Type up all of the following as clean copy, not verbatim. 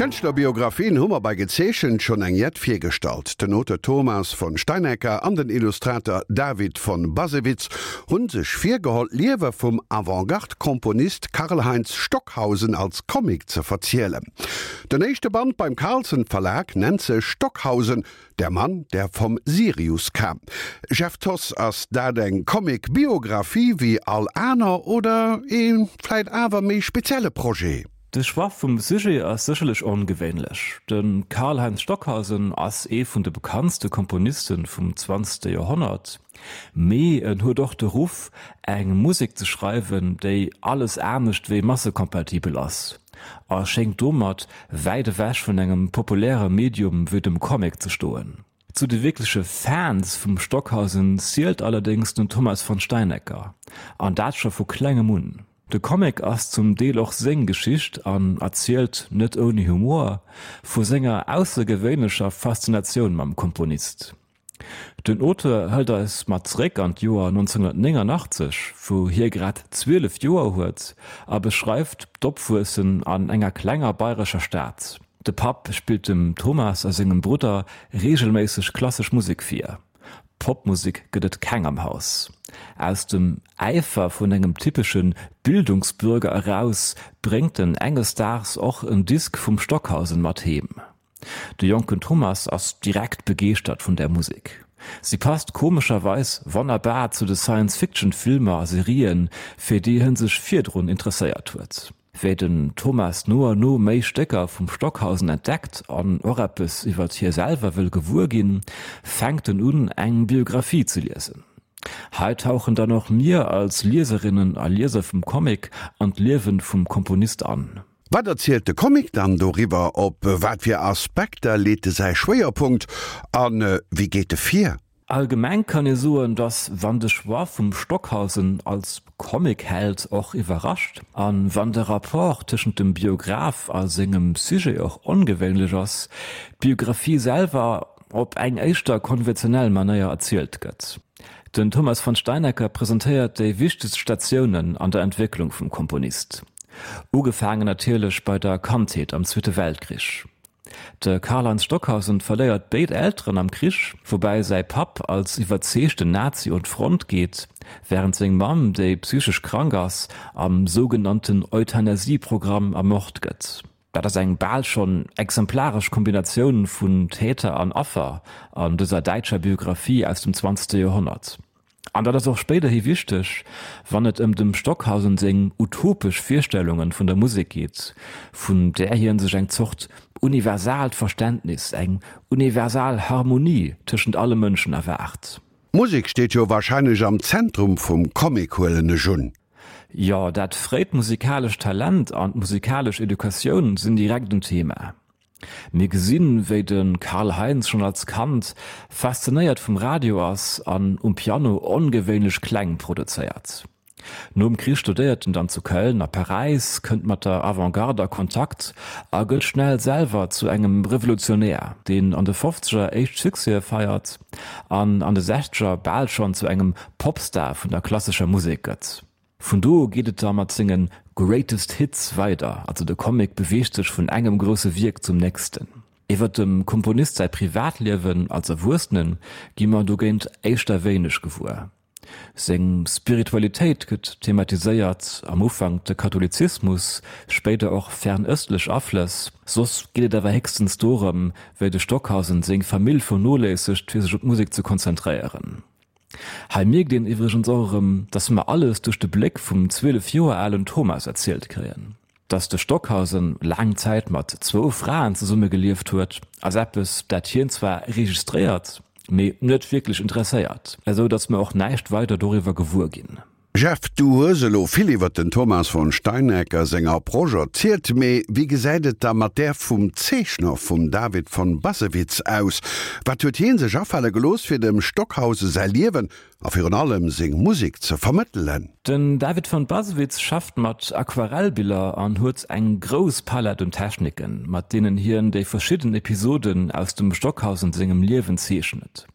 Kënschtlerbiografien hu mer bei Gezeechent schonn eng jett virgestallt. Den Auteur Thomas von Steinaecker an den Illustrator David von Bassewitz hu sech virgeholl, d'Liewe vum Avantgarde-Komponist Karlheinz Stockhausen als Comic ze verzielen. Den éischte Band beim Carlsen Verlag nennt sech Stockhausen, Der Mann, der vom Sirius kam. Jeff Thoss, ass dat eng Comic-Biographie wéi all aner oder ee vläit awer méi spezielle Projet? De Choix vum Sujet ass sécherlech ongewéinlech. De Karlheinz Stockhausen ass ee vun de bekanntste Komponiste vum zwanzegste Joerhonnert, mee en huet och de Ruff, eng Musek ze schreiwen, déi alles anescht wéi massekompatibel ass, a schéngt domat wäit ewech vun engem populäre Medium wéi dem Comic ze stoen. Zu de wierkleche Fans vum Stockhausen zielt allerdéngs den Thomas von Steinaecker, an dat scho vu klengem un. De Comic ass zum Deel och seng Geschicht an erzielt, net ouni Humor, vu senger aussergewéinlecher Faszinatioun mam Komponist. Den Auteur hëlt eis mat zeréck an d'Joer 1989, wou hie grad 12 Joer huet, a beschreift d'Opwuessen an enger klenger bayrescher Stad. De Papp spillt dem Thomas a sengem Brudder reegelméisseg klassesch Musek vir. Popmusek gëtt et keng am Haus. Aus dem Äifer vun engem typesche Bildungsbürger eraus bréngt en enges Daags och en Disk vum Stockhausen mat heem. De jonken Thomas ass direkt begeeschtert vun där Musek. Si passt komescherweis wonnerbar zu de Science-Fiction-Filmer a Serien, fir déi hien sech virdrun interesséiert huet. Wéi den Thomas no a no méi Stécker vum Stockhausen entdeckt an och eppes iwwert hie selwer wëll gewuer ginn, fänkt en un, eng Biographie ze liesen. Hei tauchen dann och mir als Lieserinnen a Lieser vum Comic an d'Liewen vum Komponist an. Wat erzielt de Comic dann doriwwer? Op wat fir Aspekter leet e säi Schwéierpunkt a wéi geet e vir? Allgemeng kann ee soen, datt wann de Choix vum Stockhausen als Comic-Held och iwwerrascht, a wann de Rapport tëschent dem Biograph a sengem Sujet och ongewéinlech ass, d'Biographie selwer op eng éischter konventionell Manéier erzielt gëtt. Den Thomas von Steinaecker presentéiert déi wichtegst Statiounen an der Entwécklung vum Komponist, ugefaangen natierlech bei der Kandheet am Zweete Weltkrich. De Karlheinz Stockhausen verléiert béid Elteren am Krich, woubäi säi Papp als iwwerzeegten Nazi un d'Front geet, wärend seng Mamm, déi psychesch krank ass, am sougenannten Euthanasie-Programm ermort gëtt. Dat ass eng bal schonn exemplaresch Kombinatioun vun Täter an Affer an dëser däitscher Biographie aus dem zwanzegste Joerhonnert. An dat ass och spéiderhi wichteg, wann et ëm dem Stockhausen seng utopesch Virstellunge vun der Musek geet, vun där hien sech eng Zort universaalt Verständnis, eng universal Harmonie tëschent alle Mënschen erwaart. D'Musek steet jo warscheinlech am Zentrum vum Comic, huelen ech un. Jo, dat fréit musikalescht Talent an d'musikalesch Educatioun sinn direkt en Thema. Mir gesinn, wéi de Karl Heinz schonn als Kand faszinéiert vum Radio ass an um Piano ongewéinlech Kläng produzéiert. Nom Krich studéiert en dann zu Köln a Paräis, kënnt mat der Avantgarde a Kontakt a gëtt schnell selwer zu engem Revolutionär, deen an de Fofzeger éischt Succèse feiert an an de Sechzeger bal schonn zu engem Popstar vun der klassescher Musek gëtt. Vun do u geet et da mat senge Greatest Hits weider, also de Comic beweegt sech vun engem grousse Wierk zum nächsten. Iwwer dem Komponist säi Privatliewen als Erwuessene gi mer dogéint éischter wéineg gewuer. Seng Spiritualitéit gëtt thematiséiert, am Ufank de Katholizismus, spéider och fernëstlech Aflëss. Soss geet et awer héchstens dorëm, wéi de Stockhausen seng Famill vernoléissegt fir sech op d'Musek ze konzentréieren. Hei mierkt een iwwregens och erëm, dass mer alles duerch de Bléck vum 12 Joer alen Thomas erzielt kréien. Dass de Stockhausen laang Zäit mat zwou Fraen zesumme gelieft huet, ass eppes, dat hien zwar registréiert, mee net wierklech interesséiert, esou dass mer och näischt weider doriwwer gewuer ginn. Jeff, du hues elo vill iwwert den Thomas von Steinaecker seng Approche erzielt, mee wéi gesäit et da mat där vum Zeechner, vum David von Bassewitz aus? Wat huet hien sech afale gelooss fir dem Stockhausen säi Liewen a virun allem seng Musek ze vermëttelen? Den David von Bassewitz schafft mat Aquarellbiller an huet eng grouss Palett un Techniken, mat deenen hien déi verschidden Episoden aus dem Stockhausen sengem Liewen zeechnet.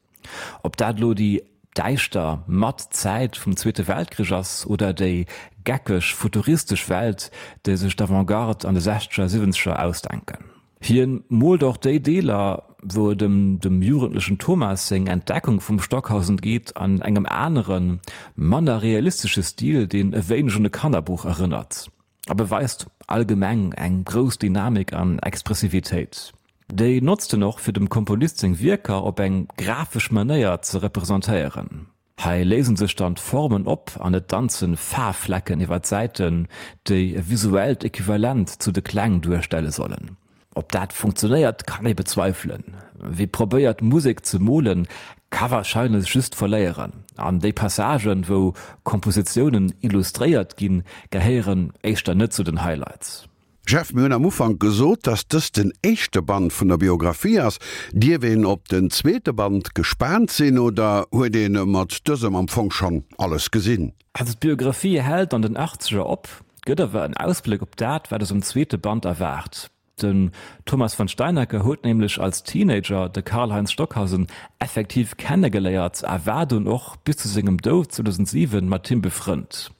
Ob dat elo déi däischter, matt Zäit vum Zweete Weltkrich ass oder déi geckeg, futuristesch Welt, déi sech d'Avant-Garde an de Sechzeger, Siwwenzeger ausdenken. Hien moolt och déi Deeler, wou et ëm dem jugendlechen Thomas seng Entdeckung vum Stockhausen geet, an engem aneren, manner realistesche Stil, deen e wéineg un e Kannerbuch erënnert a beweist allgemeng eng grouss Dynamik an Expressivitéit. Déi notzt en och, fir dem Komponist seng Wierker op eng grafesch Manéier ze representéieren. Hei léisen sech dann d'Formen op an et danzen Faarfflecken iwwer d'Säiten, déi e visuellt Equivalent zu de Kläng duerstelle sollen. Ob dat funktionéiert, kann ee bezweifelen. Wie probéiert Musek ze molen, ka warscheinlech just verléieren. An déi Passagen, wou Kompositiounen illustréiert ginn, gehéieren éischter net zu den Highlights. Jeff, mir hunn am Ufank gesot, dass dëst den éischte Band vun der Biographie ass. Dierf een op den zweete Band gespaant sinn oder huet ee mat dësem am Fong schonn alles gesinn? Also d'Biographie hält an den Achtzeger op, gëtt awer en Ausbléck op dat, wat eis am zweete Band erwaart. Den Thomas von Steinacker huet nämlech als Teenager de Karlheinz Stockhausen effektiv kennegeléiert a war dunn och bis zu sengem Doud 2007 mat him befrënnt.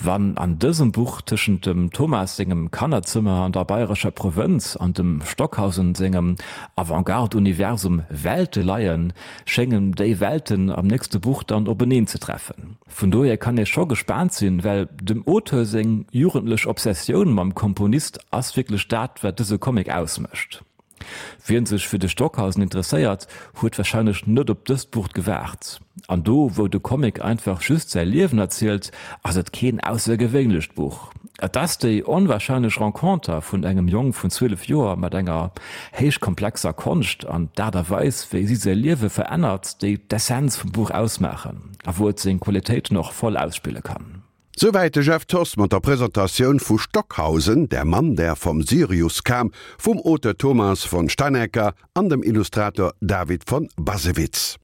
Wann an dësem Buch tëschent dem Thomas sengem Kannerzëmmer an der bayrescher Provënz an dem Stockhausen sengem Avantgarde-Universum Welte leien, schéngen déi Welten am nächste Buch dann openeen ze treffen. Vun dohier kann ee scho gespaant sinn, well dem Auteur seng jugendlech Obsessioun mam Komponist ass wierklech dat, wat dëse Comic ausmécht. Wien sech fir de Stockhausen interesséiert, huet warscheinlech net op dëst Buch gewaart. An do wou de Comic einfach just säi Liewen erzielt, ass et keen aussergewéinlecht Buch. Et ass déi onwarscheinlech Renconter vun engem Jong vun 12 Joer mat enger héich komplexer Konscht an d'Aart a Weis wéi si säi Liewe verännert, déi d'Essenz vum Buch ausmaachen a wou et seng Qualitéiten och voll ausspille kann. Souwäit de Jeff Thoss mat der Presentatioun vu Stockhausen, Der Mann, der vom Sirius kam vum Auteur Thomas von Steinaecker an dem Illustrator David von Bassewitz.